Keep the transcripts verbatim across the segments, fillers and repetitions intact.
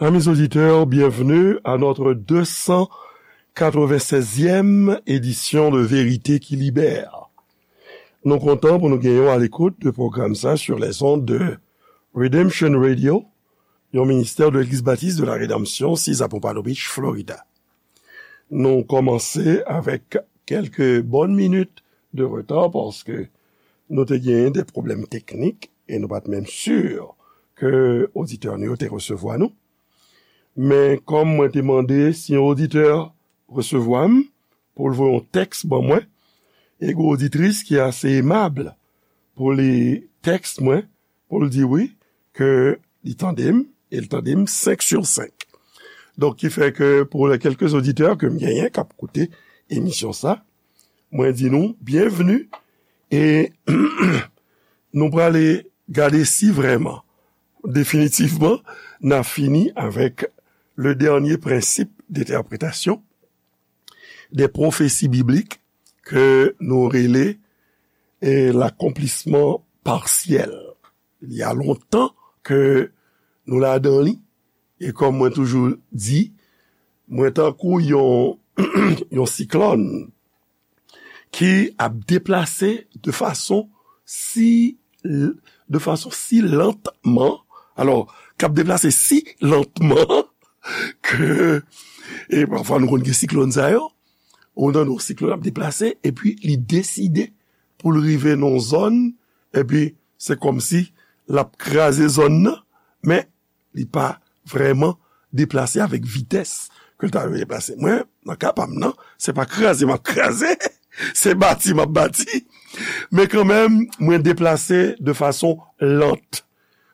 Amis auditeurs, bienvenue à notre deux cent quatre-vingt-seizième édition de Vérité qui Libère. Nou kontan pou nou gen w à l'écoute de pwogram sa sur les ondes de Redemption Radio, yon ministè de Legliz Batis de la Redanmsyon, six à Pompano Beach, Florida. Nou kòmanse avèk kèlke bòn minit de reta paske nou te genyen de pwoblèm teknik e nou pa t menm si ke oditè nou yo te resevwa nou. Men kòm mwen te mande si yon oditè resevwa m pou l voye yon tèks ban mwen, e gen oditris ki ase emab pou li tèks mwen, pou l di wi, ke li tande m, e l tande m senk sou senk. Donk, ki fè ke pou les quelques auditeurs ke m genyen k ap koute emisyon sa, mwen di nou byenvni, e nou prale gade si vrèman, definitivman, n a fini avèk le dernier principe d'interprétation des prophéties bibliques ke nou rele, eh, l'accomplissement partiel. Il y a longtemps ke nou ladan li, e kòm mwen toujou di, mwen tankou yon, yon siklòn ki ap deplase de fason si, de fason si lantman, alò, k ap deplase si lantman ke, e pafwa nou konn gen siklòn sa yo, ou tande yon siklòn ap deplase, epi li deside pou l rive nan yon zòn, epi se kòmsi l ap kraze zòn nan, men li pa vrèman deplase avèk vitès ke l ta dwe deplase. Mwen, nan ka pa m nan, se pa kraze m ap kraze, se bati m ap bati. Men kanmenm, mwen deplase de fason lant,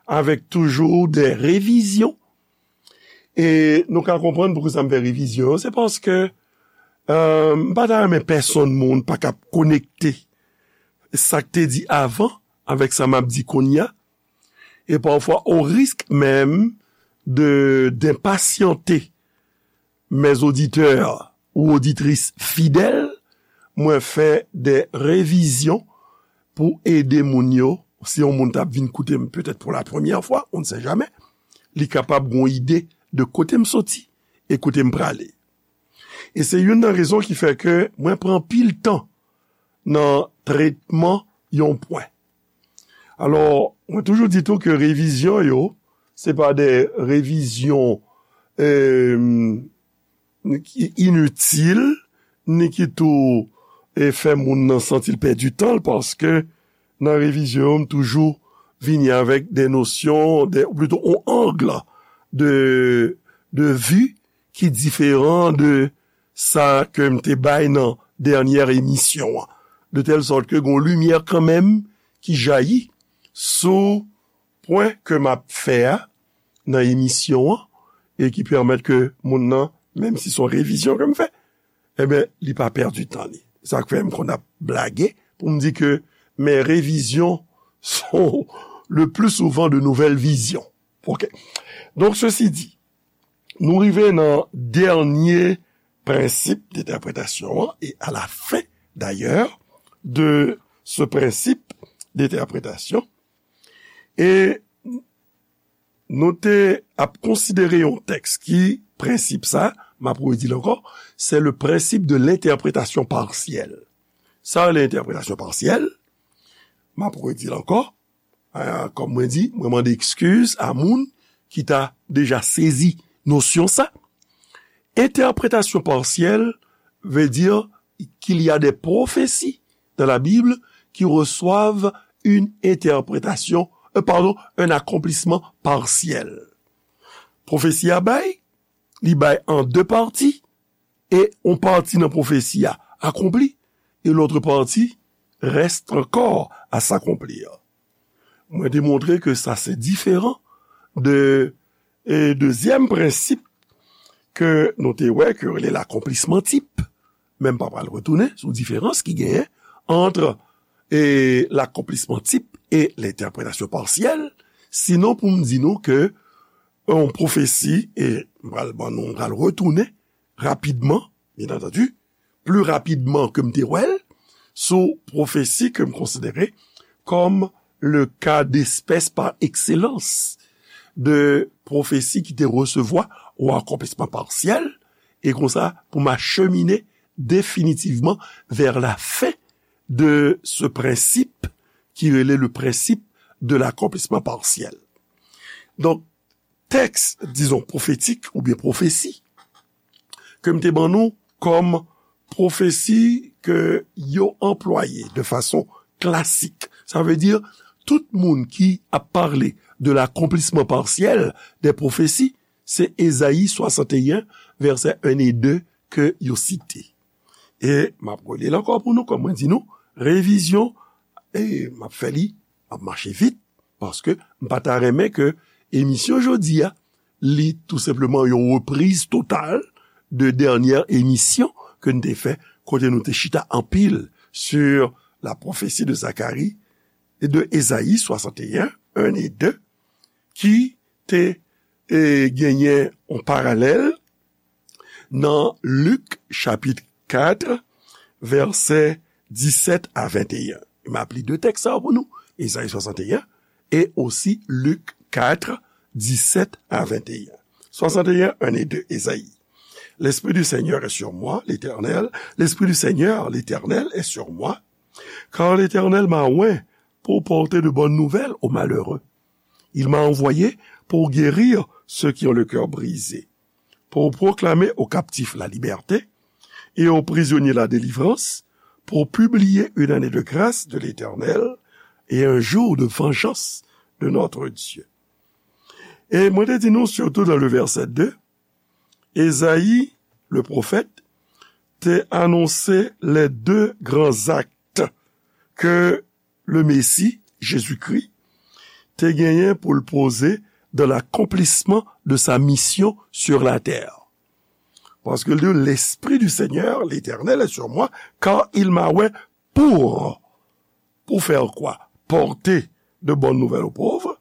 avèk toujou de revizyon. E nou ka konprann poukisa m fè revizyon yo, se paske, euh, m pa ta renmen pèsonn moun pa ka konekte sa k te di avan avèk sa m ap di kounye a. E pafwa, au risque même de, d'impatienter mes auditeurs ou auditrices fidèles, mwen fè de revizyon pou ede moun yo. Si yon moun t ap vin koute m petèt pour la première fois, on ne sait jamais, li kapab gon ide de kote m soti e kote m prale. E se youn nan rezon ki fè ke mwen pran pil tan nan tretman yon pwen. Alò, mwen toujou di tou ke revizyon yo, se pa de revizyon, eh, ki initil, ni ki tou, eh, fè moun nan santi l pèdi tan l, paske nan revizyon yo, m toujou vini avèk de nosyon, de, ou plito, on ang de, de vi ki diferan de sa ke m te bay nan dènyè emisyon an. De tèl sòt ke gon limyè kanmenm ki jayi sou pwen ke m ap fè a nan emisyon an e ki pèmèt ke moun nan, menm si se yon revizyon ke m fè, ebyen, li pa pèdi tan li. Sa k fè m konn ap blage pou m di ke mes révisions sont le plus souvent de nouvelles visions. Ok. Donc, ceci dit, nou rive nan dènye prensip de entèpretasyon an, e à la fin, d'ailleurs, de ce principe d'interprétation, e nou te ap konsidere yon tèks ki prensip sa, m ap redi l ankò, c'est le principe de l'interprétation partielle. Sa rele entèpretasyon pasyèl, m ap redi l ankò, ah, kòm mwen di, mwen mande ekskiz a moun ki ta deja sezi nosyon sa. Entèpretasyon pasyèl veut dire qu'il y a des prophéties dans la Bible qui reçoivent une interprétation, euh, pardon, un accomplissement partiel. Pwofesi a bay, li bay an de pati, e yon pati nan pwofesi a akonpli, e lòt pati reste encore à s'accomplir. Mwen te montre ke sa se diferan de, e dezyèm prensip ke nou te wè, ke yo rele l'accomplissement type. Men m pa pral retounen sou diferans ki genyen ant, e, l'accomplissement type e l'interprétation partielle, sinon pou m di nou ke yon pwofesi, e m pral ban nou, m pral retounen rapidman, bien entendu, pli rapidman ke m te wè l, sou pwofesi ke m konsidere kòm le cas d'espèce par excellence de pwofesi ki te resevwa yon akonplisman pasyèl, e konsa pou m achemine definitivman vers la fin de ce principe ki rele le principe de l'accomplissement partiel. Donk, tèks, dizon, pwofetik oubyen pwofesi ke m te ban nou kòm pwofesi ke yo anplwaye de fason klasik. Sa vle di, tout moun ki ap pale de l'accomplissement partiel des prophéties, se Ezayi swasanteyen, vèsè en e de ke yo site. E m ap rele l ankò pou nou, kòm mwen di nou, revizyon, e m ap fè li, m ap mache vit, paske m pa ta renmen ke emisyon jodi a, li tou senpleman yon repriz total de dènyè emisyon ke n te fè, kote nou te chita anpil sur la prophétie de Zacharie et de Ezayi swasanteyen, en e de, ki te, e, genyen yon paralèl nan Lik chapit kat, vèsè disèt a venteyen. M ap li de tèks sa yo pou nou, Ezayi swasanteyen e osi Lik kat, disèt a venteyen. Swasanteyen, en e de, Ezayi. L'Esprit du Seigneur est sur moi, l'Éternel, l'Esprit du Seigneur, l'Éternel, est sur moi, car l'Éternel m'a oint pour porter de bonnes nouvelles aux malheureux. Il m'a envoyé pour guérir ceux qui ont le cœur brisé, pour proclamer aux captifs la liberté et aux prisonniers la délivrance, pour publier une année de grâce de l'Éternel et un jour de vengeance de notre Dieu. E mwen te di nou, sitou nan le vèsè de, Ezayi, le pwofèt, te anonse les deux grands actes que le Messie, Jésus-Christ, te genyen pou l poze dans l'accomplissement de sa mission sur la terre. Paske l di, l'Esprit du Seigneur, l'Éternel, est sur moi, car il m'a oint pour, pour faire quoi? Porter de bonnes nouvelles aux pauvres,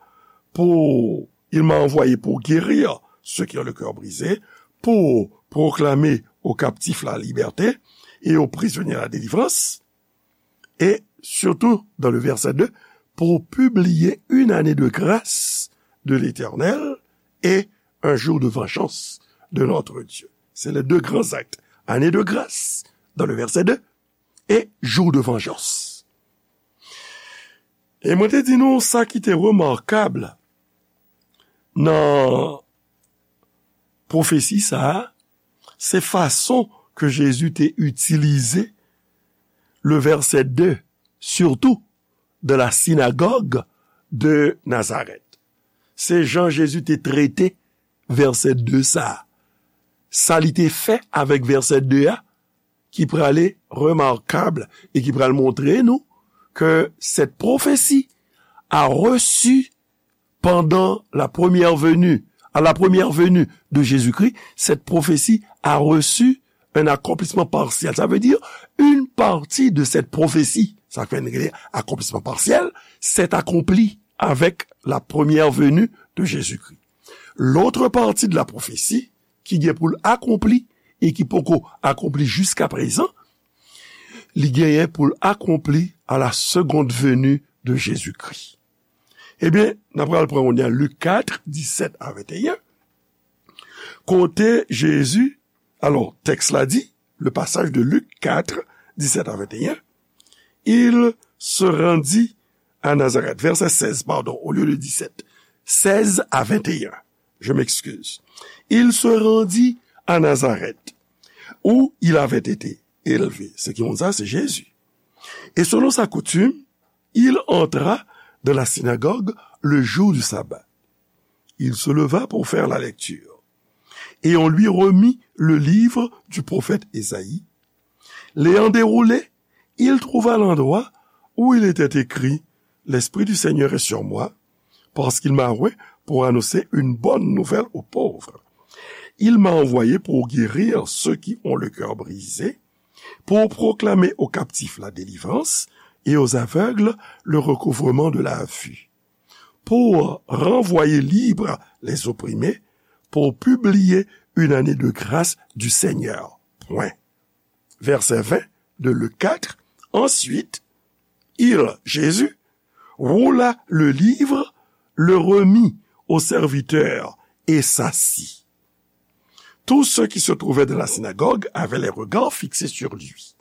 pour, il m'a envoyé pour guérir ceux qui ont le cœur brisé, pour proclamer aux captifs la liberté et aux prisonniers la délivrance, et surtout dans le verset deux, pour publier une année de grâce de l'Éternel et un jour de vengeance de notre Dieu. C'est les deux grands actes. Année de grâce dans le verset deux et jour de vengeance. E mwen te di nou sa ki te remakab nan pwofesi sa a, se fason ke Jezi te itilize le verset deux, surtout dans la synagogue de Nazareth. Se jan Jezi te trete verset deux sa a. Sa li te fè avèk verset deux a, ki prale remakab e ki pral montre nou que cette prophétie a reçu pendant la première venue, à la première venue de Jésus-Christ, cette prophétie a reçu un accomplissement partiel. Ça veut dire, une partie de cette prophétie, sa k fè n rele accomplissement partiel, s'est accomplie avec la première venue de Jésus-Christ. L'autre partie de la prophétie, ki gen pou l akonpli e ki poko akonpli jiska prezan, li genyen pou l akonpli à la seconde venue de Jésus-Christ. Ebyen, n ap pral pran kounye a Lik kat, disèt a venteyen, kote Jezi, alò, tèks la di, le passage de Luc quatre, dix-sept à vingt et un, il se rendit à Nazareth. Verset seize, pardon, au lieu de dix-sept. Seize à vingt et un. Je m'excuse. Il se rendit à Nazareth, où il avait été élevé. Se ki moun sa? Se Jezi. Et selon sa coutume, il entra dans la synagogue le jour du sabbat. Il se leva pour faire la lecture. Et on lui remit le livre du prophète Ésaïe. L'ayant déroulé, il trouva l'endroit où il était écrit : « L'Esprit du Seigneur est sur moi, parce qu'il m'a oint pour annoncer une bonne nouvelle aux pauvres. Il m'a envoyé pour guérir ceux qui ont le cœur brisé, pour proclamer aux captifs la délivrance et aux aveugles le recouvrement de la vue, pour renvoyer libres les opprimés, pour publier une année de grâce du Seigneur. » Point. Verset vingt de Luc quatre. Ensuite, il, Jésus, roula le livre, le remit au serviteur et s'assit. Tous ceux qui se trouvaient dans la synagogue avaient les regards fixés sur lui.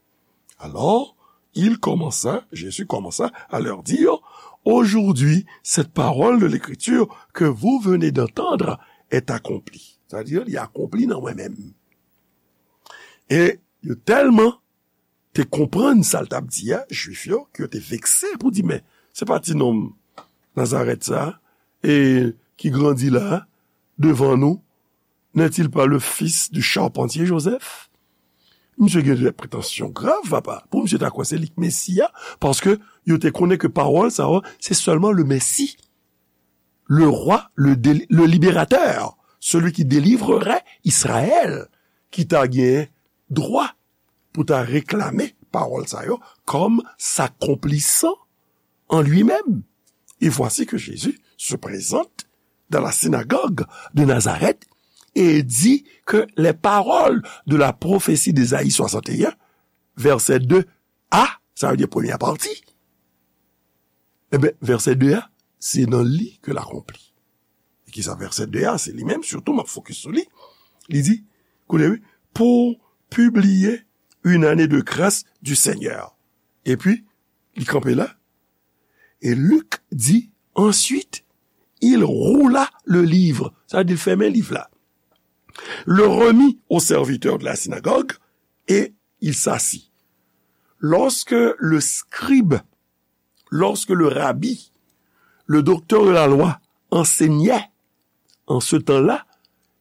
Alors, il commença, Jésus commença à leur dire, aujourd'hui, cette parole de l'Écriture que vous venez d'entendre est accomplie. Sa vle di, li akonpli nan mwen menm. E yo tèlman te konprann sa l t ap di a, Jwif yo, ke yo te vekse pou di, men, se pa ti nonm Nazarèt sa, e ki grandi la, devan nou, n'est-il pas le fils du charpentier Joseph? Misye gen de pretansyon grav, papa. Pou misye ta kwè se li k Mesi a, paske yo te konnen ke pawòl sa yo, se sèlman le Messie, le roi, le, déli- le libérateur, celui qui délivrerait Israël, ki ta gen dwa pou ta reklame pawòl sa yo comme s'accomplissant en lui-même. Et voici que Jésus se présente dans la synagogue de Nazareth et dit que les paroles de la prophétie d'Ésaïe soixante et un, verset deux a, sa vle di premyè pati, ebyen, vèsè de a, se nan li ke l akonpli. E kisa vèsè de a, se li menm, sitou m ap fokis sou li. Li di, koute wi, pour publier une année de grâce du Seigneur. Epi, li kanpe la. Et Luc dit, ensuite, il roula le livre. Sa vle di, l fèmen liv la. Le remit au serviteur de la synagogue et il s'assit. Lorsque le scribe, lorsque le rabbi, le docteur de la loi enseignait, en ce temps-là,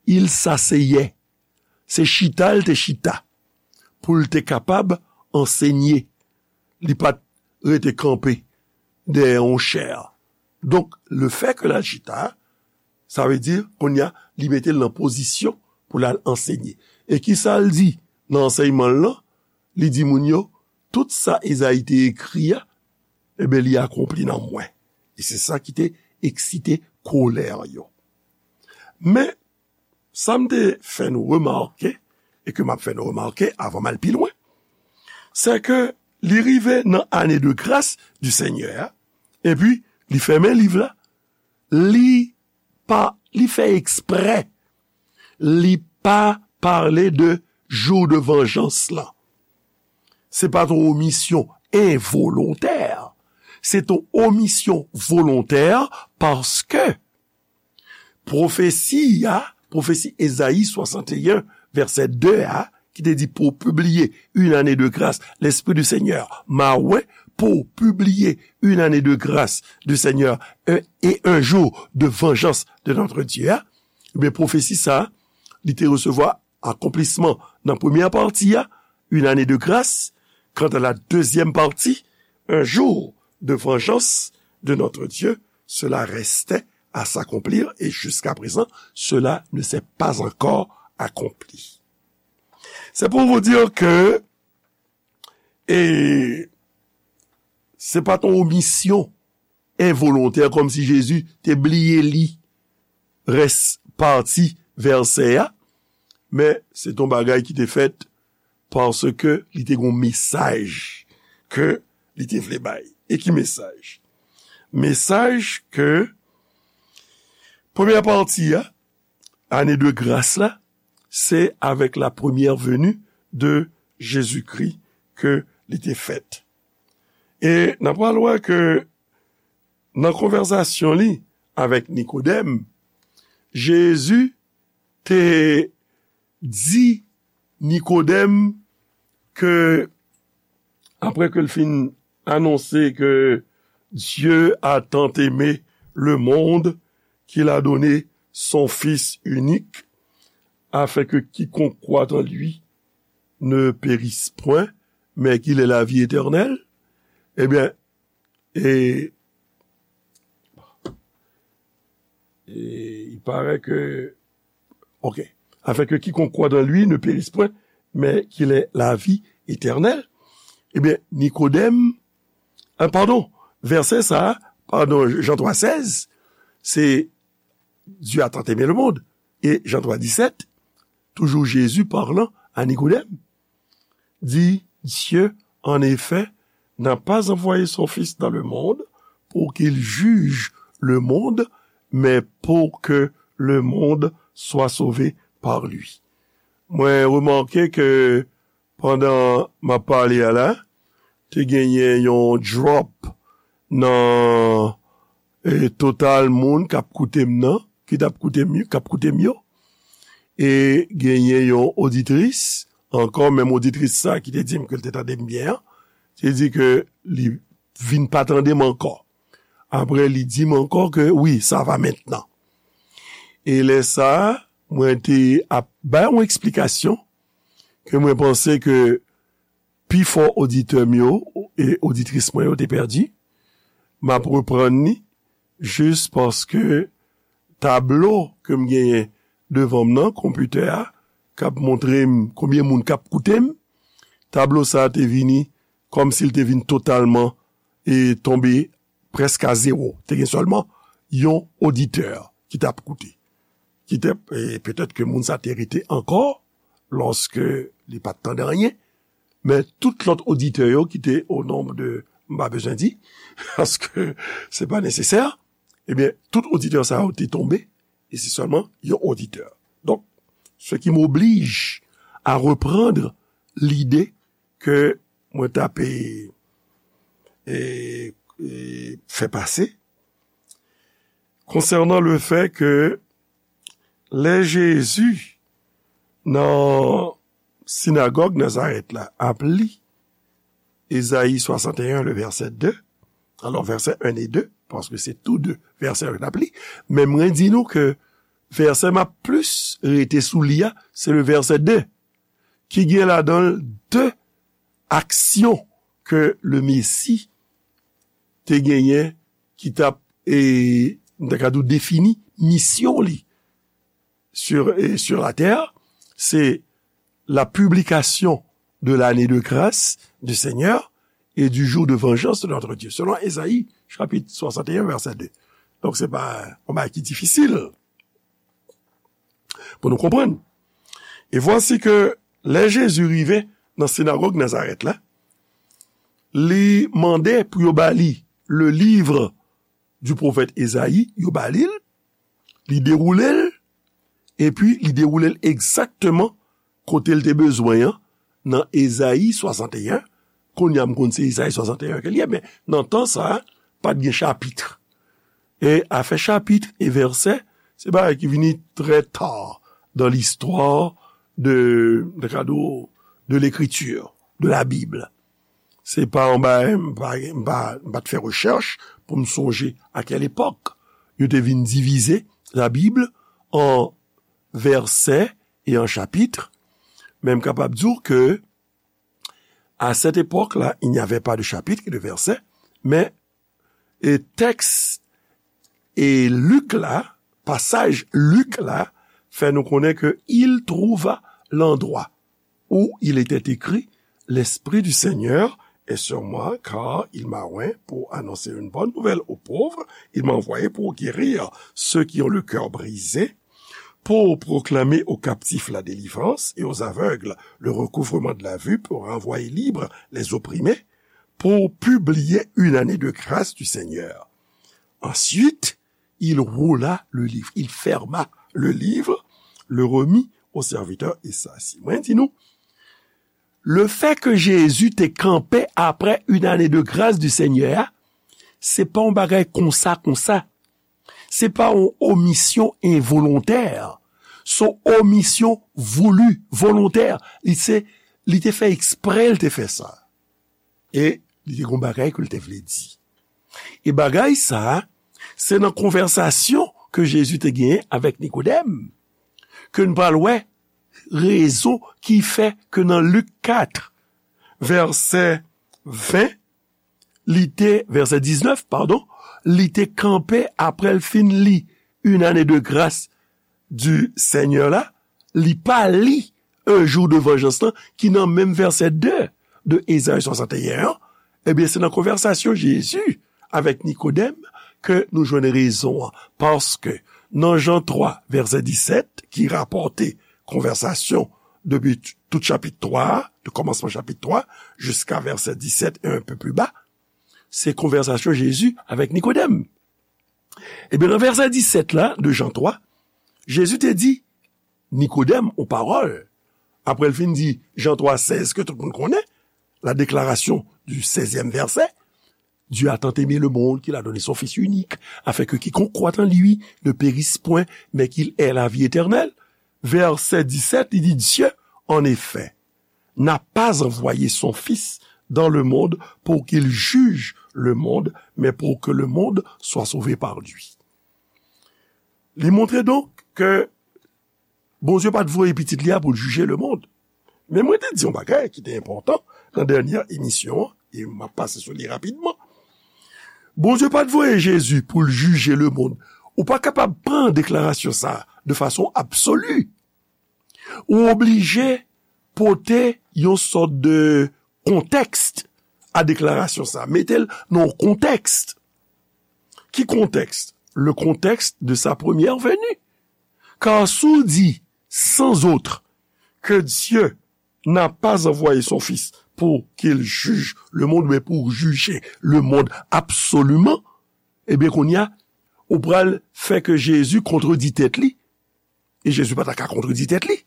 il s'asseyait. Se chita l te chita pou l te kapab ansenye. Li pa t rete kanpe dèyè yon chè. Donk, lefètke l al chita, sa vle di, kounye a, li mete l nan pozisyon pou l al ansenye. E kisa l di nan ansèyman l lan? Li di moun yo, tout sa Ezayi te ekri a, ebyen, li akonpli nan mwen. E se sa ki te eksite kolè yo. Men, sa m te fè nou remake, e ke m ap fè nou remake avan m al pi lwen, se ke li rive nan ane de gras di Senyè a, epi li fèmen liv la, li pa, li fè eksprè, li pa pale de jou de vanjans lan. Se pa t yon omisyon envolontè. Se t yon omisyon volontè paske pwofesi a, pwofesi Ezayi swasanteyen, vèsè de a, ki te di, pour publier une année de grâce, l'Esprit du Seigneur m'a oint pour publier une année de grâce du Seigneur, un- et un jour de vengeance de notre Dieu, a, ebyen, pwofesi sa, li te resevwa akonplisman nan premyè pati a, une année de grâce, quant à la deuxième partie, un jour de vengeance de notre Dieu, cela restait à s'accomplir et jusqu'à présent, cela ne s'est pas encore accompli. C'est pour vous dire que, e, se pa t yon omisyon envolontè, kòmsi Jezi te bliye li rès pati vèsè a, men se t yon bagay ki te fèt paske li te gen yon mesaj ke li te vle bay. E ki mesaj? Mesaj ke premyè pati a, ane de gras la, se avec la première venue de Jésus-Christ ke li te fèt. E n ap pral wè ke nan konvèsasyon li avèk Nikodèm, Jezi te di Nikodèm ke, apre ke l fin anonse ke Dieu a tant aimé le monde qu'il a donné son Fils unique, afin que quiconque croit en lui ne périsse point, mais qu'il ait la vie éternelle, ebyen, e, e, il paraît que, ok, afin que quiconque croit en lui ne périsse point, mais qu'il ait la vie éternelle. Ebyen, Nikodèm, a, padon, vèsè sa, padon, Jan twa sèz, se Dieu a tant aimé le monde. E Jan twa disèt, toujours Jésus parlant à Nicodème, dit, Dieu, en effet, n'a pas envoyé son Fils dans le monde pour qu'il juge le monde, mais pour que le monde soit sauvé par lui. Mwen remake ke pandan m ap pale a la, te genyen yon drop nan, e, total moun k ap koute m nan, ki t ap koute m, k ap koute m yo. E genyen yon oditris, ankò menm oditris sa ki te di m ke l te tande m byen an, te di ke li vin pa tande m ankò. Apre, li di m ankò ke, wi, sa va mentnan. E lè sa a, mwen te ap bay yon eksplikasyon ke mwen panse ke pifò oditè m yo e oditris mwen yo te pèdi. M ap reprann li jis paske tablo ke m genyen devan m nan, konpitè a, k ap montre m konbyen moun k ap koute m, tablo sa a te vini kòmsi l te vin totalman e tonbe prèske a zewo. Te gen sèlman yon oditè ki t ap koute. Ki te, e petèt ke moun sa te rete ankò lòske li pa t tande anyen, men tout lòt oditè yo ki te o nonb de, m pa bezwen di, paske se pa nesesè, ebyen, tout oditè sa yo te tonbe, e se sèlman yon oditè. Donk, ce qui m'oblige à reprendre l'idée ke mwen t ap, e, e, e, fè pase konsènan le fè ke lè Jezi nan sinagòg Nazarèt la ap li Ezayi swasanteyen, le vèsè de, alò vèsè en e de, paske se tou de vèsè yo l ap li, men mwen di nou ke vèsè m ap plis rete sou li a, se le vèsè de, ki gen ladan l de aksyon ke le Mesi te genyen, ki t ap, e, m ta ka di w, defini misyon li sur, e, sur la terre, se la publication de l'année de grâce du Seigneur et du jour de vengeance de notre Dieu, selon Ezayi, chapit swasanteyen, vèsè de. Donk, se pa yon bagay ki difisil pou nou konprann. E vwasi ke lè Jezi rive nan sinagòg Nazarèt la, li mande pou yo ba li le livre du prophète Ezayi, yo ba li l, li dewoule l, epi li dewoule l egzakteman kote l te bezwen an, nan Ezayi swasanteyen. Kounye a m konn se Ezayi swasanteyen ke l ye, men nan tan sa a, pa t gen chapit. E afè chapit e vèsè, se bagay ki vini trè ta dan listwa de, de kado, de lekriti, de la Bib. Se pa yon bagay, m pa, m pa, m pa t fè rechèch pou m sonje a kèl epòk yo te vin divize la Bib an vèsè e an chapit. Men m kapab di w ke, à cette époque-là, il n'y avait pas de chapitre et de verset, men, e tèks e Lik la, pasaj Lik la, fè nou konnen ke il trouva l'endroit où il était écrit, l'Esprit du Seigneur est sur moi, car il m'a oint pour annoncer une bonne nouvelle aux pauvres, il m'a envoyé pour guérir ceux qui ont le cœur brisé, pour proclamer aux captifs la délivrance et aux aveugles le recouvrement de la vue, pour renvoyer libres les opprimés, pour publier une année de grâce du Seigneur. Ensuite, il roula le livre, il ferma le livre, le remit au serviteur Ezayi. Mwen di nou, le fait que Jésus te kanpe après une année de grâce du Seigneur, se pa yon bagay konsa, konsa. Se pa yon omisyon envolontè. Se yon omisyon voulu, volontè. Li se, li te fè eksprè, li te fè sa. E li te gon bagay ke l te vle di. E bagay sa, se nan konvèsasyon ke Jezi te genyen avèk Nikodèm, ke n pral wè rezon ki fè ke nan Lik kat, vèsè ven, li te, vèsè diznèf, padon, li te kanpe apre l fin li Une année de grâce du Seigneur la, li pa li Un jour de vengeance lan, ki nan menm vèsè de de Ezayi swasanteyen an, ebyen, se nan konvèsasyon Jezi avèk Nikodèm ke nou jwenn rezon an. Paske nan Jan twa, vèsè disèt, ki rapòte konvèsasyon depi t-, tout chapit twa a, de kòmansman chapit twa, jiska vèsè disèt e un peu plus bas, se konvèsasyon Jezi avèk Nikodèm. Ebyen, nan vèsè disèt la, de Jan twa, Jezi te di Nikodèm yon pawòl. Apre l fin di Jan twa sèz ke tout moun konnen, la déclaration du seizième verset, Dieu a tant aimé le monde qu'il a donné son Fils unique, afin que quiconque croit en lui ne périsse point, mais qu'il ait la vie éternelle. Vèsè disèt, li di, Dieu, en effet, n'a pas envoyé son Fils dans le monde pour qu'il juge le monde, mais pour que le monde soit sauvé par lui. Li montre donk ke Bondye pa t voye pitit li a pou l jije lemonn. Men mwen te di yon bagay ki te enpòtan nan dènyè emisyon an, e m ap pase sou li rapidman. Bondye pa t voye Jezi pou l jije lemonn. Ou pa kapab pran deklarasyon sa a de fason absoli. Ou oblije pote yon sòt de kontèks a deklarasyon sa a. Mete l nan yon kontèks. Ki kontèks? Le contexte de sa première venue. Car si w di sans autre que Dieu n'a pas envoyé son Fils pour qu'il juge le monde, mais pour juger le monde absolument, ebyen, kounye a, ou pral fè ke Jezi kontredi tèt li. E Jezi pa ta ka kontredi tèt li.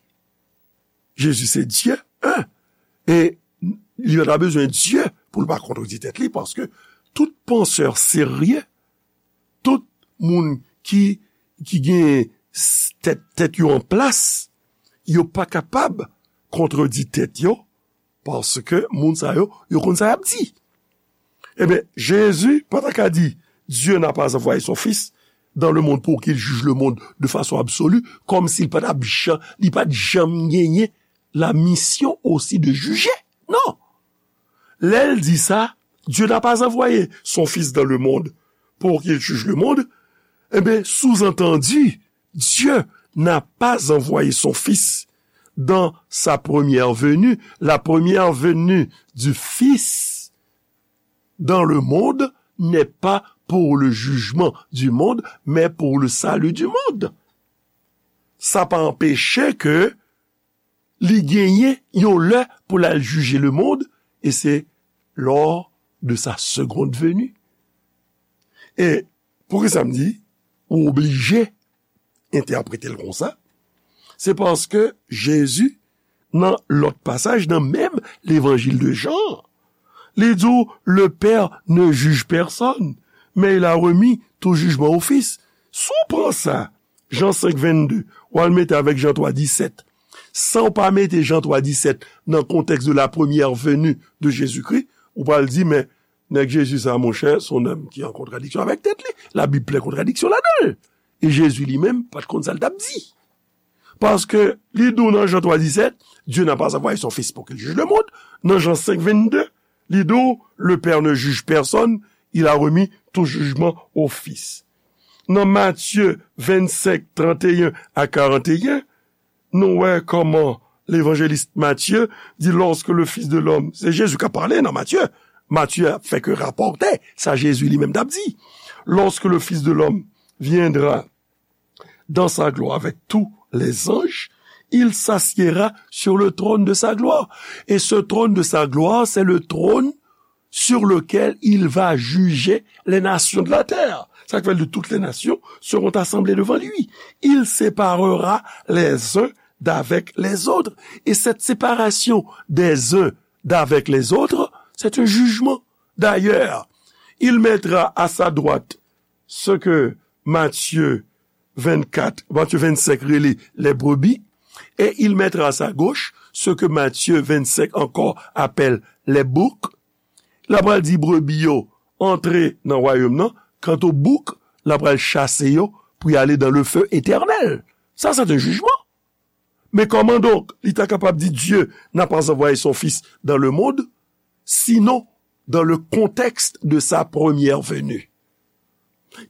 Jezi se Dye, en. E li pa ta bezwen Dye pou l pa kontredi tèt li, paske tout pansè serye, tout moun ki, ki gen s-, tèt, tèt yo an plas, yo pa kapab kontredi tèt yo, paske moun sa yo, yo konn sa y ap di. Ebyen, Jezi pa ta ka di, Dieu n'a pas envoyé son Fils dans le monde pour qu'il juge le monde de façon absolue, kòmsi l pa t ap jan-, li pa t janm genyen la mission aussi de juger. Non. Lè l di sa, Dieu n'a pas envoyé son Fils dans le monde pour qu'il juge le monde, ebyen, sous-entendu, Dieu n'a pas envoyé son Fils dans sa première venue. La première venue du Fils dans le monde n'est pas pour le jugement du monde, mais pour le salut du monde. Sa pa anpeche ke li genyen yon lè pou l al jije lemonn, e se lors de sa seconde venue. E poukisa m di, ou oblije entèprete l konsa? Se paske Jezi, nan lòt pasaj, nan menm levanjil de Jan, li di w, le Père ne juge personne, mais il a remis tout jugement au Fils. Si w pran sa, Jan senk vennde, w al mete avèk Jan twa disèt, san w pa mete Jan twa disèt nan kontèks de la première venue de Jésus-Christ, ou pral di, men, nèg Jezi sa, monchè, se yon nonm ki an kontradiksyon avèk tèt li. Labib plen kontradiksyon ladan l. E Jezi li menm pa t konn sa l t ap di. Paske li di w nan Jan twa disèt, Dieu n'a pas envoyé son Fils pour qu'il juge le monde. Nan Jan senk vennde, li di w, le Père ne juge personne, il a remis tout jugement au Fils. Nan Matye vennsenk, tranteyen a karanteyen, nou wè kòman levanjelis Matye di, lorsque le Fils de l'homme, se Jezi k ap pale nan Matye. Matye ap fè ke rapòte sa Jezi li menm t ap di. Lorsque le Fils de l'homme viendra dans sa gloire avec tous les anges, il s'assiera sur le trône de sa gloire. Et ce trône de sa gloire, c'est le trône sur lequel il va juger les nations de la terre. Sa k fè l di, toutes les nations seront assemblées devant lui. Il séparera les uns d'avec les autres. Et cette séparation des uns d'avec les autres, c'est un jugement. D'ailleurs, il mettra à sa droite ce que Matthieu vingt-quatre, Matthieu vingt-cinq rele les brebis, et il mettra à sa gauche ce que Matthieu vingt-cinq encore appelle les boucs. L ap pral di brebi yo antre nan wayòm nan, kanto bouk, l ap pral chase yo pou y ale dans le feu éternel. Sa, se te jijman. Men kòman donk li ta kapab di Dieu n'a pas envoyé son Fils dans le monde, sinon dans le contexte de sa première venue?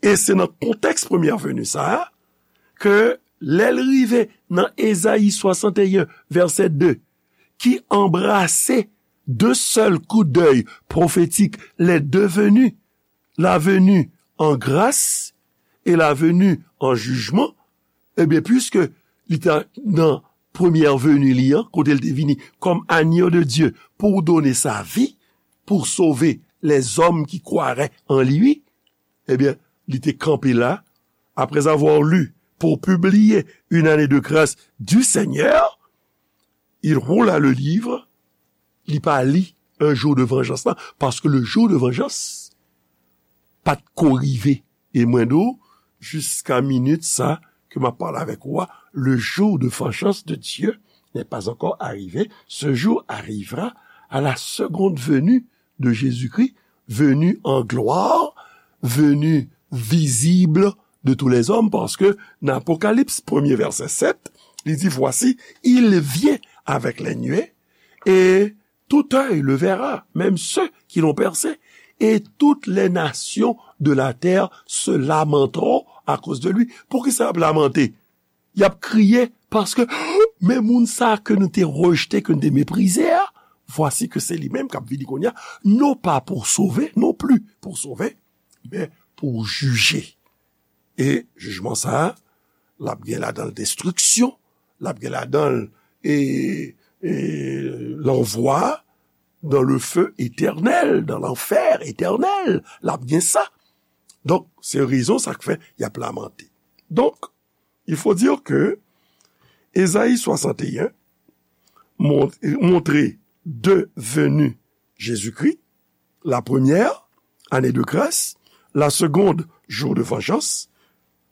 E se nan kontèks premyè veni sa a ke lè l rive nan Ezayi swasanteyen, vèsè de, ki anbrase de sèl kou dèy pwofetik les deux venues, la venue en grâce et la venue en jugement, ebyen, piske li ta nan premyè veni li an, kote l te vini kòm agneau de Dieu pour donner sa vie, pour sauver les hommes qui croiraient en lui, ebyen, li te kanpe la, après avoir lu pour publier une année de grâce du Seigneur, il roula le livre, li pa li un jour de vengeance la, paske le jour de vengeance pa t ko rive. E mwen di w, jiska minit sa ke m ap pale avèk ou a, le jour de vengeance de Dieu n'est pas encore arrivé. Ce jour arrivera à la seconde venue de Jésus-Christ, venu en gloire, venu visible de tous les hommes, paske nan Apokalips, premye vèsè sèt, li di, voici, il vient avec les nuées, et tout œil le verra, même ceux qui l'ont percé, et toutes les nations de la terre se lamenteront à cause de lui. Poukisa y ap lamante? Y ap kriye paske, men moun sa ke nou te rejte, ke nou te meprize a, vwasi ke se li menm k ap vini kounye a, non pa pou sove, non pli pou sove, men pou jije. E jijman sa a, l ap gen ladan l destriksyon, l ap gen ladan l, e, e, lanvwa dans le feu éternel, dans l'enfer éternel, l ap gen sa. Donk, se rezon sa k fè y ap lamante. Donk, il faut dire que Ésaïe soixante et un mont- montre deux venues Jésus-Christ, la première, année de grâce, la seconde, jour de vengeance.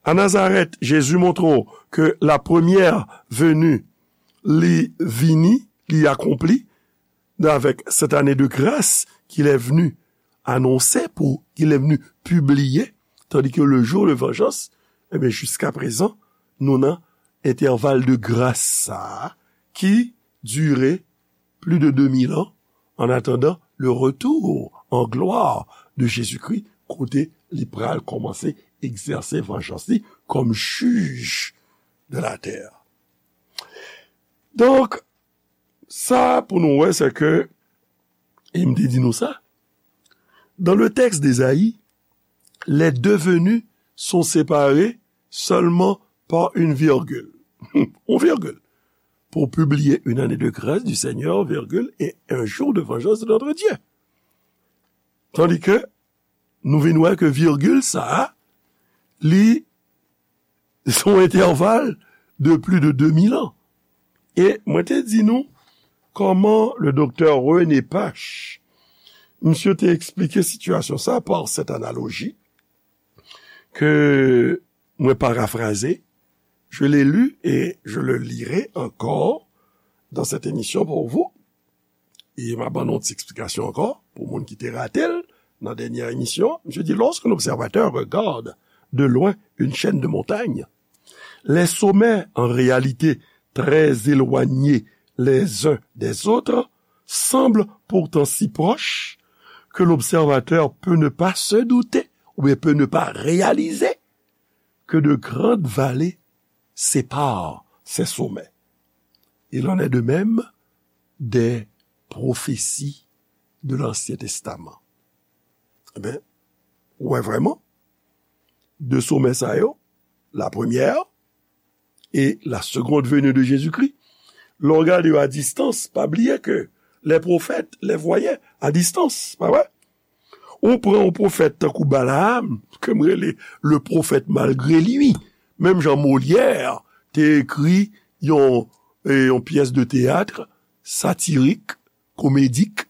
A Nazarèt, Jezi montre w ke la première venue li vini, li akonpli, avèk cette année de grâce qu'il est venu annoncer, pou qu'il est venu publier, tandis que le jour de vengeance, eh bien, jusqu'à présent, nou nan entèval de gras sa a ki dire plus de deux mille ans, en attendant le retour en gloire de Jésus-Christ, kote li pral kòmanse egzèse vanjans li kòm jij de la terre. Donk, sa pou nou wè, se ke, e m te di nou sa, dans le texte d'Ésaïe, les deux venues sont séparées seulement par une virgule. Une virgule. Pour publier une année de grâce du Seigneur, virgule, et un jour de vengeance de notre Dieu. Tandis que nou vin wè ke virgil sa a, li se yon entèval de plis de de mil an. E mwen te di nou kòman le doktè René Pache, misye te eksplike sitiyasyon sa par cette analogie que mwen parafraze, je l'ai lu et je le lirai encore dans cette émission pour vous. E m a ban nou yon ti eksplikasyon ankò, pou moun ki te rate l nan dènyè emisyon. Misye di, lorsqu'un observateur regarde de loin une chaîne de montagnes, les sommets, en réalité très éloignés les uns des autres, semblent pourtant si proches que l'observateur peut ne pas se douter ou bien peut ne pas réaliser que de grandes vallées séparent ces sommets. Il en est de même des prophéties de l'Ancien Testament. Eben, ou wè vrèman, de somè sa yo, la première et la seconde venue de Jésus-Christ, lè w gade yo a distans, pa bliye ke les prophètes les voyaient à distance, pa vre? Ou pran yon pwofèt tankou Balaam, ke m rele le prophète malgré lui. Menm jan Molière te ekri yon, e, yon pyès de teyat satirik, komedik,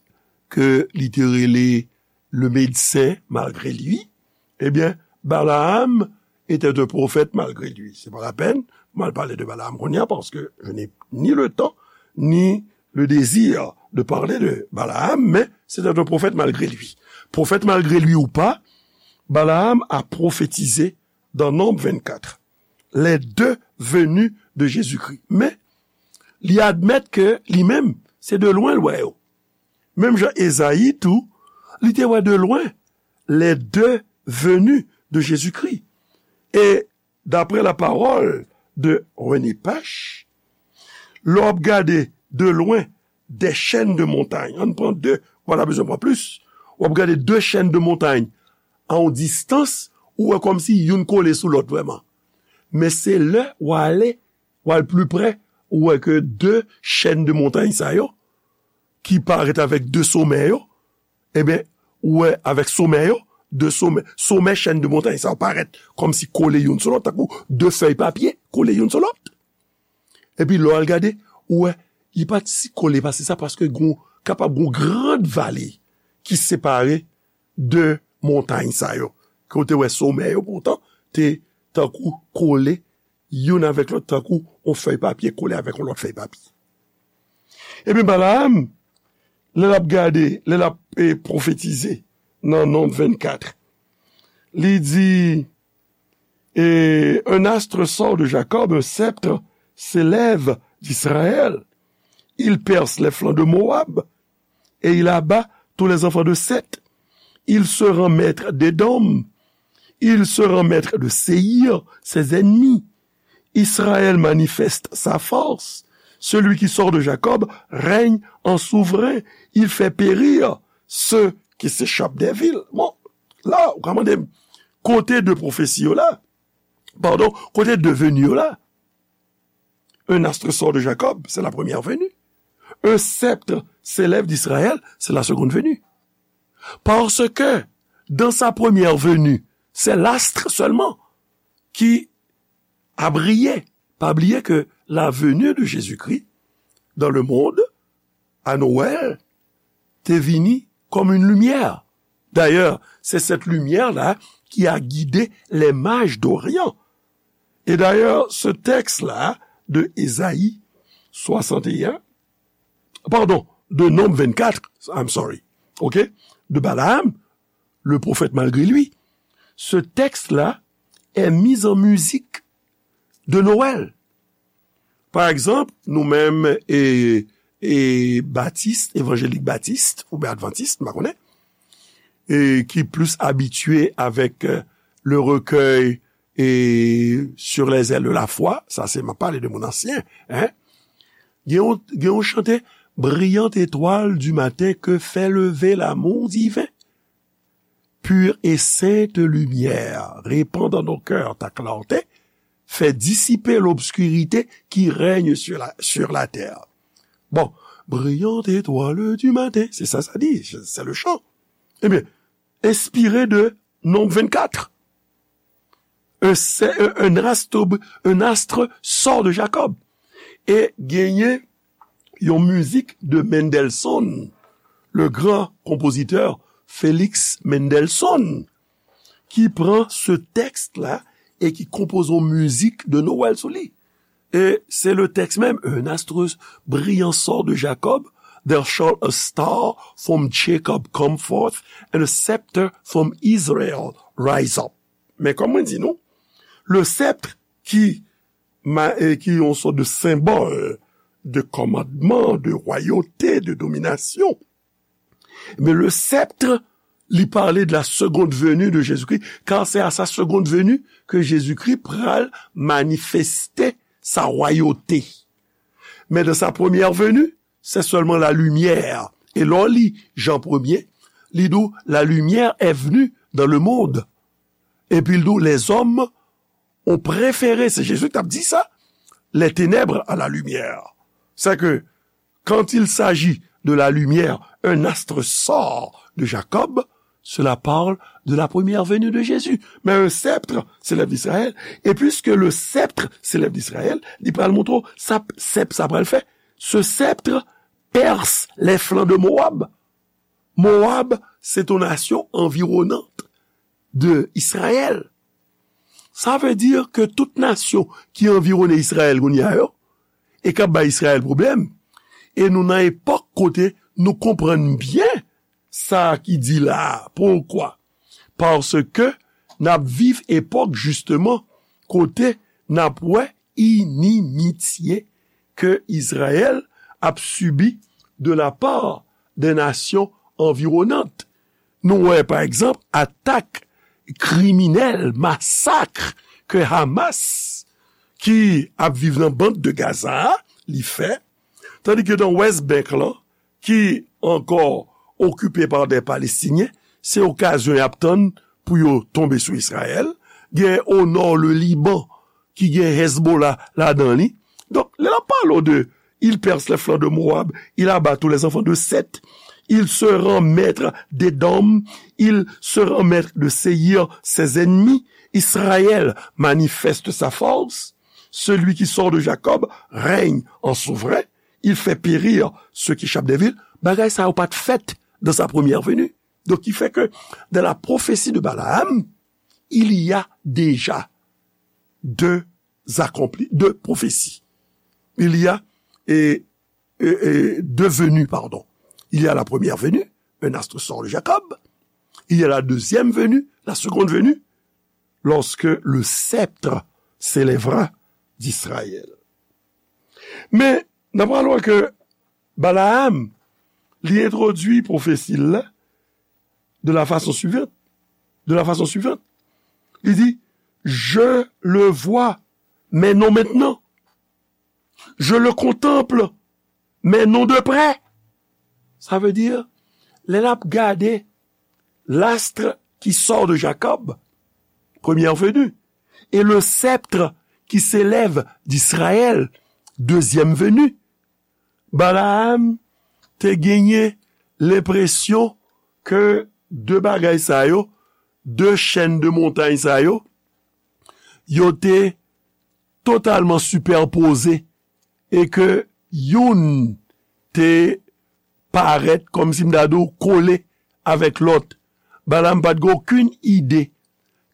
ke li te rele le médecin malgré lui. Ebyen, Balaam était un prophète malgré lui. C'est pas la peine, m al pale de Balaam kounye a, parce que je n'ai ni le temps, ni le désir de parler de Balaam, mais c'était un prophète malgré lui. Prophète malgré lui ou pas, Balaam a prophétisé dans Nombre vingt-quatre les deux venues de Jésus-Christ. Men, li admèt ke li menm, se de lwen l wè yo. Menm jan Ezayi tou, li te wè de lwen les deux venues de Jésus-Christ. E daprè la parole de René Pache, lè w ap gade de lwen des chaînes de montagnes, ann pran de, w pa ta bezwen pran plis, w ap gade de chaînes de montagnes a yon distans, ou wè kòmsi youn kole sou lòt vrèman. Men se lè w ale, w al pli prè, ou wè ke de chaînes de montagnes sa yo, ki parèt avèk de somè yo, ebyen, ou wè avèk somè yo, de somè, somè chèn de montay sa yo parèt kòmsi kole youn sou lòt, tankou de fèy papye kole youn sou lòt. Epi lè w al gade, ou wè, li pa t si kole pase sa, paske gon, kapab gon grand vale ki separe de montay sa yo. Ke w te wè somè yo poutan te tankou kole youn avèk lòt, tankou yon fèy papye kole avèk yon lòt fèy papye. Epi Balaam, lè l ap gade, lè l ap eh, pwofetize nan Nonb vennkat, li di, et un astre sort de Jacob, un sceptre s'élève d'Israël. Il perce les flancs de Moab et il abat tous les enfants de Seth. Il se rend maître d'Édom. Il se rend maître de Séïr, ses ennemis. Israël manifeste sa force. Celui qui sort de Jacob règne en souverain. Il fait périr ceux qui s'échappent des villes. Bon, la, ou ka mande m, kote de pwofesi yo la? Padon, kote de veni yo la? Un astre sort de Jacob, c'est la première venue. Un sceptre s'élève d'Israël, c'est la seconde venue. Parce que dans sa première venue, c'est l'astre seulement qui a brillé. Pa bliye ke la venue de Jésus-Christ dans le monde, à Noël, te vini comme une lumière. D'ailleurs, c'est cette lumière-là qui a guidé les mages d'Orient. Et d'ailleurs, ce texte-là de Ésaïe soixante et un, pardon, de Nonb vennkat, I'm sorry, ok, de Balaam, le prophète malgré lui, ce texte-là est mis en musique de Noël. Pa egzanp, nou menm, e, e, batis, evanjelik batis, oubyen advantis, m pa konnen, e, ki plis abitye avèk, euh, le recueil et sur les ailes de la foi, sa se, m ap pale de moun ansyen, hein? Gen yon, gen yon chante, Brillante étoile du matin que fait lever l'amour divin. Pure et sainte lumière, répand dans nos cœurs ta clarté, fais dissiper l'obscurité qui règne sur la, sur la terre. Bon, brillante étoile du matin, c'est ça, ça dit, c'est le chant. Eh bien, inspiré de Nonb vennkat. Un, un, un astre, un astre sort de Jacob. E genyen yon mizik de Mendelssohn, le grand compositeur Félix Mendelssohn, ki pran se tèks la e ki konpoze yon mizik de Nwèl sou li. E se le tèks menm, un astre brillant sort de Jacob, there shall a star from Jacob come forth, and a scepter from Israel rise up. Men kòm mwen di nou, le sceptre ki, ma, e ki yon sòt de senbòl de kòmandman, de wayòte, de dominasyon. Men le sceptre, li pale de la seconde venue de Jésus-Christ, car c'est à sa seconde venue que Jésus-Christ pral manifeste sa wayòte. Men dans sa première venue, c'est seulement la lumière. E lè w li Jan premye, li di w, la lumière est venue dans le monde. Epi l di w, les hommes ont préféré, se Jezi k t ap di sa, les ténèbres à la lumière. C'est que quand il s'agit de la lumière, un astre sort de Jacob, cela parle de la première venue de Jésus. Mais un sceptre s'élève d'Israël, et puisque le sceptre s'élève d'Israël, li pral montre w sa sèp sa pral fè. Ce sceptre perce les flancs de Moab. Moab, c'est une nation environnante de Israël. Sa vle di ke tout nasyon ki anviwone Izrayèl kounye a yo, e k ap bay Izrayèl pwoblèm, e nou nan epòk kote nou konprann byen sa ki di la a. Poukwa? Paske n ap viv epòk, jisteman, kote n ap wè inimitye ke Izrayèl ap sibi de la part des nations environnantes. Nou wè, pa egzanp, atak kriminèl, masak ke Hamas, ki ap viv nan band de Gaza a, li fè, tandi ke nan West Bank lan, ki ankò okipe pa de Palestinyen, se okazyon y ap tann pou yo tonbe sou Izrayèl. Gen o nò, le Liban, ki gen Hezbollah ladan li. Donk, lè l ap pale w de, il perce les flancs de Moab, il abat tous les enfants de Seth, Il se rend maître d'Édom, il se rend maître de Séïr, ses ennemis. Israël manifeste sa force. Celui qui sort de Jacob règne en souverain. Il fait périr ceux qui échappent des villes. Bagay sa yo pa t fèt dans sa première venue. Donc, il fait que dans la prophétie de Balaam, il y a déjà deux accomplis, deux prophéties. Il y a et, et, et deux venues, pardon. Il y a la première venue, un astre sort de Jacob. Il y a la deuxième venue, la seconde venue, lorsque le sceptre s'élèvera d'Israël. Men, n ap wè ke Balaam, li entwodui pwofesi l la de la fason swivan. De la fason swivan. Li di, je le vois, mais non maintenant. Je le contemple, mais non de près. Sa vle di, lè n ap gade l'astre qui sort de Jacob, première venue, et le sceptre qui s'élève d'Israël, deuxième venue, Balaam te genyen lenpresyon ke de bagay sa yo, de chèn de montay sa yo, yo te totalman sipèpoze e ke youn te parèt, kòmsi m ta di w, kole avèk lòt. Balaam pa t gen okenn ide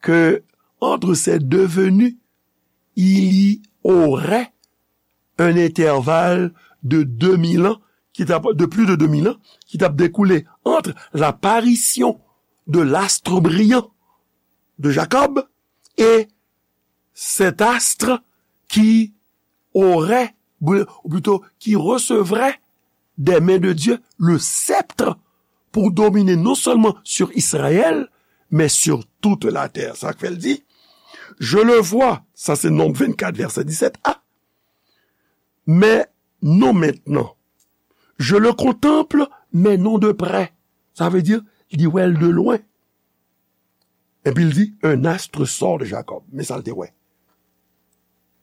ke entre ces deux venues, il y aurait un intervalle de deux mille ans, ki t ap, de plus de deux mille ans, ki t ap découlé entre l'apparition de l'astre brillant de Jacob et cet astre qui aurait, ou plutôt, qui recevrait des mains de Dieu le sceptre pour dominer non seulement sur Israël, mais sur toute la terre. Sa k fè l di, je le vois, sa se Nonb vennkat, vèsè disèt a, mais non maintenant. Je le contemple, mais non de près. Sa vle di, li wè l de lwen. Epi l di, un astre sort de Jacob. Men sa l te wè.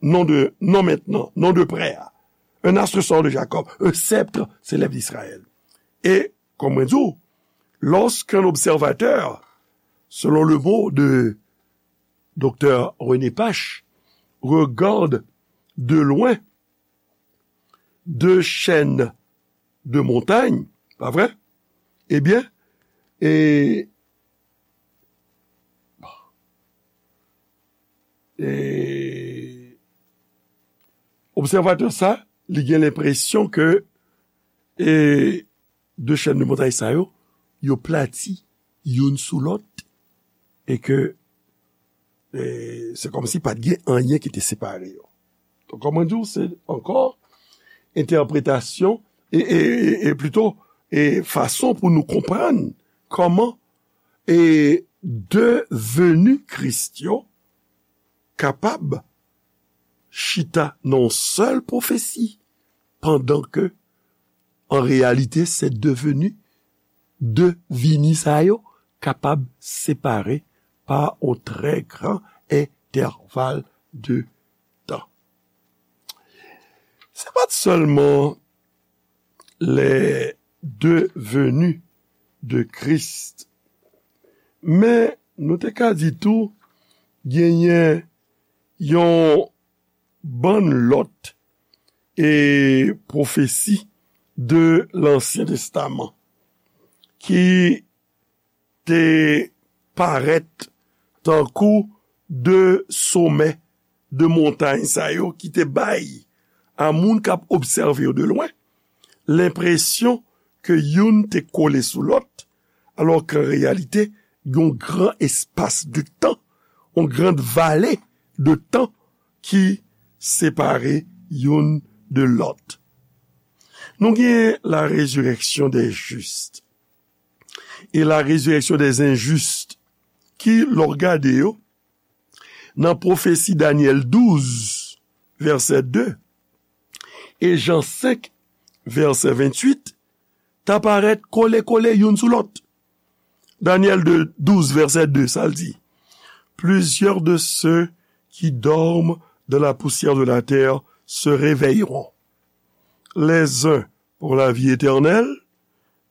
Non de, non maintenant, non de près. Un astre sort de Jacob, un sceptre s'élève d'Israël. Et, comme on dit, lorsqu'un observateur, selon le mot de Docteur René Pache, regarde de loin deux chaînes de montagnes, pa vre? Ebyen, e, e, obsèvatè sa, li gen lenpresyon ke, e, de chèn de montay sa yo, yo plati youn sou lòt, e ke, e, se kòmsi pa t gen anyen ki te separe yo. Donk, kòman di w, se ankò entèpretasyon, e, e, e, e plito, e fason pou nou konprann kòman, e, de veni Kris yo kapab chita nan yon sèl pwofesi, pandan ke, an reyalite, se deveni, de vini sa yo kapab separe pa yon trè gran entèval de tan. Se pa t sèlman les deux venues de Christ, men nou te ka di tou genyen yon bann lòt e pwofesi de Lansyen Testaman ki te parèt tankou de somè de montay sa yo ki te bay a moun k ap obsève yo de lwen lenpresyon ke youn te kole sou lòt, alò ke an reyalite, yon gran espas de tan, yon grand vale de tan ki separe youn de lòt. Nou gen la résurrection des justes et la résurrection des injustes, ki, lè w gade yo, nan pwofesi Danyèl douz, vèsè de, e Jan senk, vèsè venntuit, ta parèt kole kole youn sou lòt. Danyèl de, douz, vèsè de, sa l di, plusieurs de ceux qui dorment dans la poussière de la terre se réveilleront, les uns pour la vie éternelle,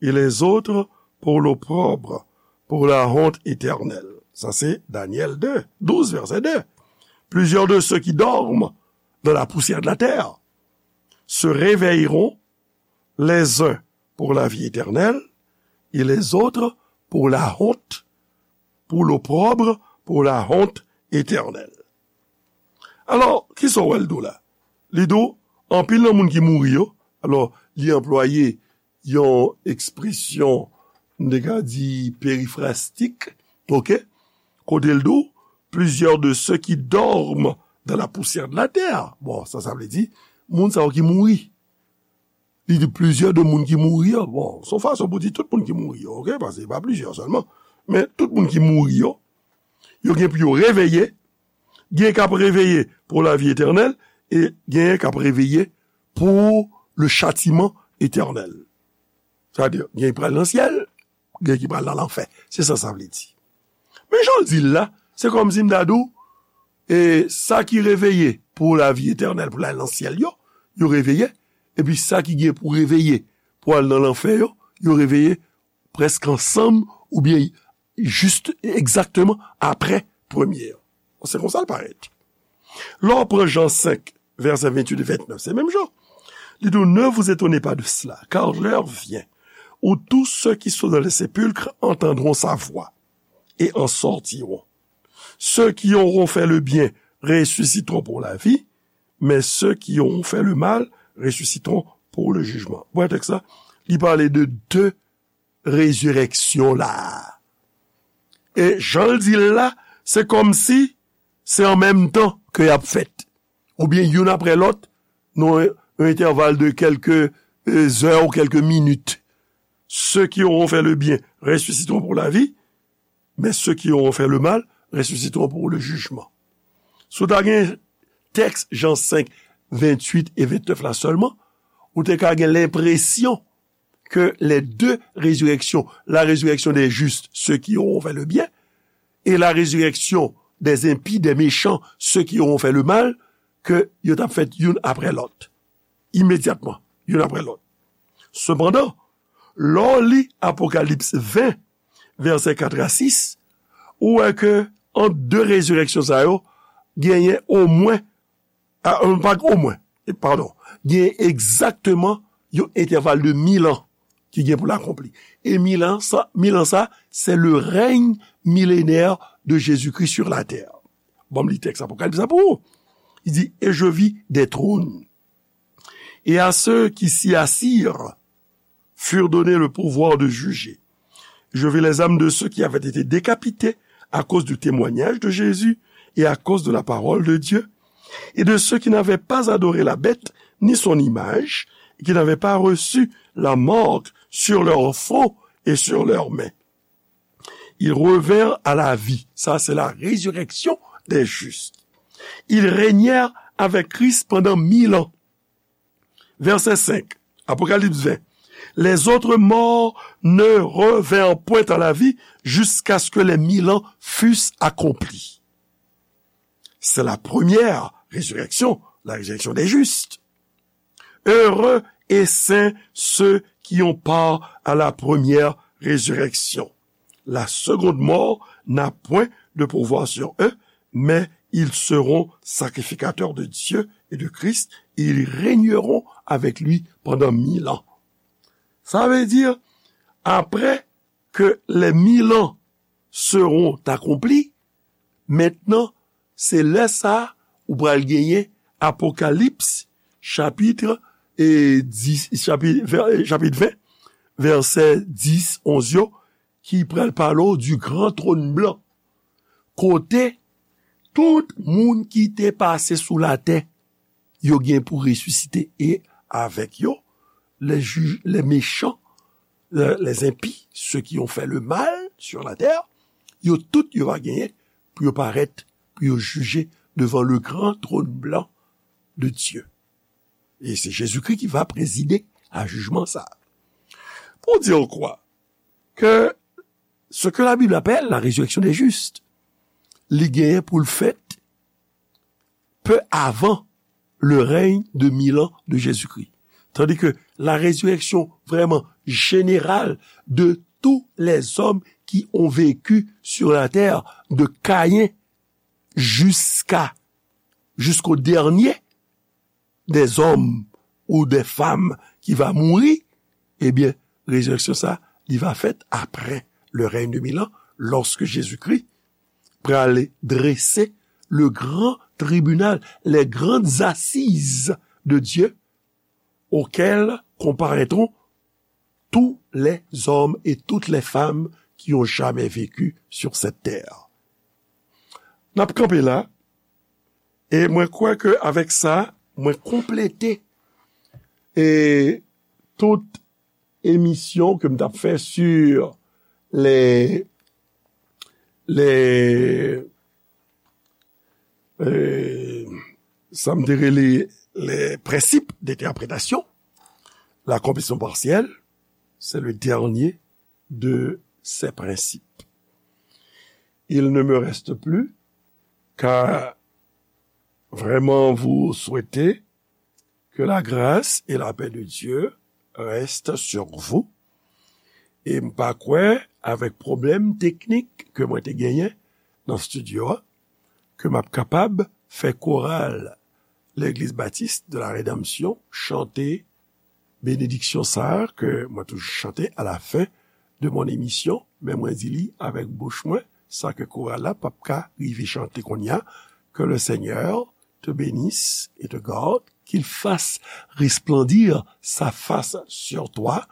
et les autres pour l'opprobre, pour la honte éternelle. Ça, c'est Daniel deux, douze, verset deux. Plusieurs de ceux qui dorment dans la poussière de la terre se réveilleront, les uns pour la vie éternelle et les autres pour la honte, pour l'opprobre, pour la honte éternelle. Alò, kisa w wè l di w la? Li di w, anpil nan moun ki mouri yo, alò, li anplwaye yon ekspresyon, m te ka di, perifrastik, oke? Kote l di w, plusieurs de ceux qui dorment dans la poussière de la terre. Bon, sa, sa vle di, moun sa yo ki mouri. Li di plizyè de moun ki mouri yo. Bon, se yon fason pou di tout moun ki mouri yo, oke? Paske se pa plizyè sèlman. Men tout moun ki mouri yo, yo gen pou yo reveye, gen k ap reveye pour la vie éternelle, e gen k ap reveye pour le châtiment éternel. Sa vle di, gen ki pral nan syèl, gen ki pral nan lanfè. Se sa sa vle di. Men jan l di l la, se kòmsi m ta di w, e sa ki reveye pour la vie éternelle, pou l al nan syèl yo, yo reveye, epi sa ki gen pou reveye pou al nan lanfè yo, yo reveye prèske ansanm, oubyen jis egzakteman apre premye an. Se konsa l parèt. Lè w pran Jan senk, vèsè venntuit e ventnèf, se menm jan. Li di w, ne vous étonnez pas de cela, car l'heure vient où tous ceux qui sont dans les sépulcres entendront sa voix et en sortiront. Ceux qui auront fait le bien ressusciteront pour la vie, mais ceux qui auront fait le mal ressusciteront pour le jugement. Ou wè tèks la, li pale de de rezirèksyon la. E jan l di l la, se kòmsi se an menm tan ke y ap fèt. Oubyen youn apre lòt, nan yon entèval de kèlke, e, zè ou kèlke minit. Ceux qui auront fait le bien ressusciteront pour la vie, mais ceux qui auront fait le mal ressusciteront pour le jugement. Si w ta gen tèks Jan senk, venntuit e ventnèf la sèlman, ou te ka gen lenpresyon que les deux résurrections, la résurrection des justes, ceux qui auront fait le bien, et la résurrection des impies, des méchants, ceux qui auront fait le mal, ke yo t ap fèt youn apre lòt. Imedyatman, youn apre lòt. Sepandan, lè w li Apokalips ven, vèsè kat a sis, ou wè ke ant de rezirèksyon sa yo, genyen omwen, a, pa omwen, e, padon, genyen egzakteman yon entèval de mil an ki gen pou l akonpli. E mil an sa, mil an sa, c'est le règne millénaire de Jésus-Christ sur la terre. Ban m li tèks Apokalips la pou ou. Il dit, et je vis des trônes, et à ceux qui s'y assirent furent donnés le pouvoir de juger. Je vis les âmes de ceux qui avaient été décapités à cause du témoignage de Jésus et à cause de la parole de Dieu, et de ceux qui n'avaient pas adoré la bête ni son image, et qui n'avaient pas reçu la marque sur leur front et sur leurs mains. Ils revinrent à la vie. Ça, c'est la résurrection des justes. Ils régnèrent avec Christ pendant mille ans. Verset cinq, Apocalypse vingt. Les autres morts ne revinrent point à la vie jusqu'à ce que les mille ans fussent accomplis. C'est la première résurrection, la résurrection des justes. Heureux et saints ceux qui ont part à la première résurrection. La seconde mort n'a point de pouvoir sur eux, mais ils seront sacrificateurs de Dieu et de Christ, et ils régneront avec lui pendant mille ans. Ça veut dire, après que les mille ans seront accomplis, maintenant, se lè sa a ou pral genyen Apokalips, chapit, e, dis, chapit, vè-, chapit ven, vèsè dis, onz yo, ki pral pale w du gran twòn blan. Kote tout moun ki te pase sou latè, yo gen pou resisite e avèk yo, les ju-, les méchants, les, les impies, ceux qui ont fait le mal sur la terre, yo tout yo va genyen pou yo parèt, pou yo jije devan le gran twòn blan de Dieu. E se Jezikri ki va prezide a jijman sa. Pou di w kwa? Ke ce que la Bible appelle la résurrection des justes, li genyen pou l fèt pe avan le règne de mille ans de Jésus-Christ. Tandis que la résurrection vraiment générale de tous les hommes qui ont vécu sur la terre, de Caïn jusqu'à, jusqu'au dernier des hommes ou des femmes qui va mourir, eh bien, résurrection sa, li va fèt après le règne de mille ans, lorsque Jésus-Christ pral drese le grand tribunal, les grandes assises de Dieu, auxquelles comparaîtront tous les hommes et toutes les femmes qui ont jamais vécu sur cette terre. N ap kanpe la, e mwen kwè ke avèk sa, mwen konplete e tout emisyon ke m t ap fè sur les, les, euh, sa m te rele les principes d'interprétation, l'accomplissement partiel, c'est le dernier de ces principes. Il ne me reste plus qu'à vraiment vous souhaiter que la grâce et la paix de Dieu restent sur vous. E m pa kwè, avèk pwoblèm teknik ke mwen te genyen nan estidyo a, ke m ap kapab fè koral Legliz Batis de la Redanmsyon chante benediksyon sa a ke mwen toujou chante alafen de mon emisyon, men mwen di li avèk bouch mwen, sa ke koral la p ap ka rive chante kounye a, que le Seigneur te bénisse et te garde, qu'il fasse resplendir sa face sur toi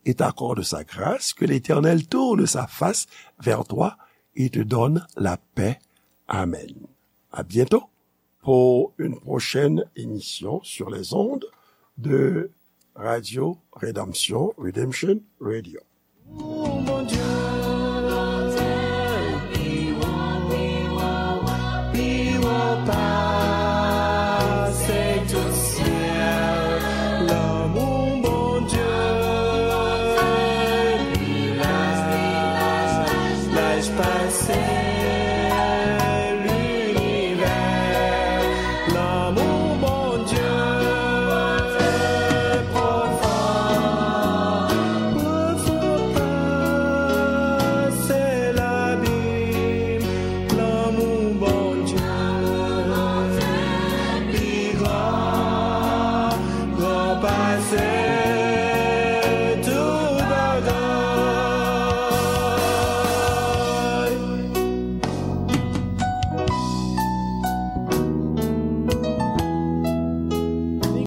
et t'accorde sa grâce, que l'Éternel tourne sa face vers toi et te donne la paix. Amen. À bientôt pour une prochaine émission sur les ondes de Radio Rédemption, Redemption Radio. Bondye, pi wo, pi wo, pi wo pase tout syèl. Lanmou Bondye pi laj, pi laj, laj pase linivè. Lanmou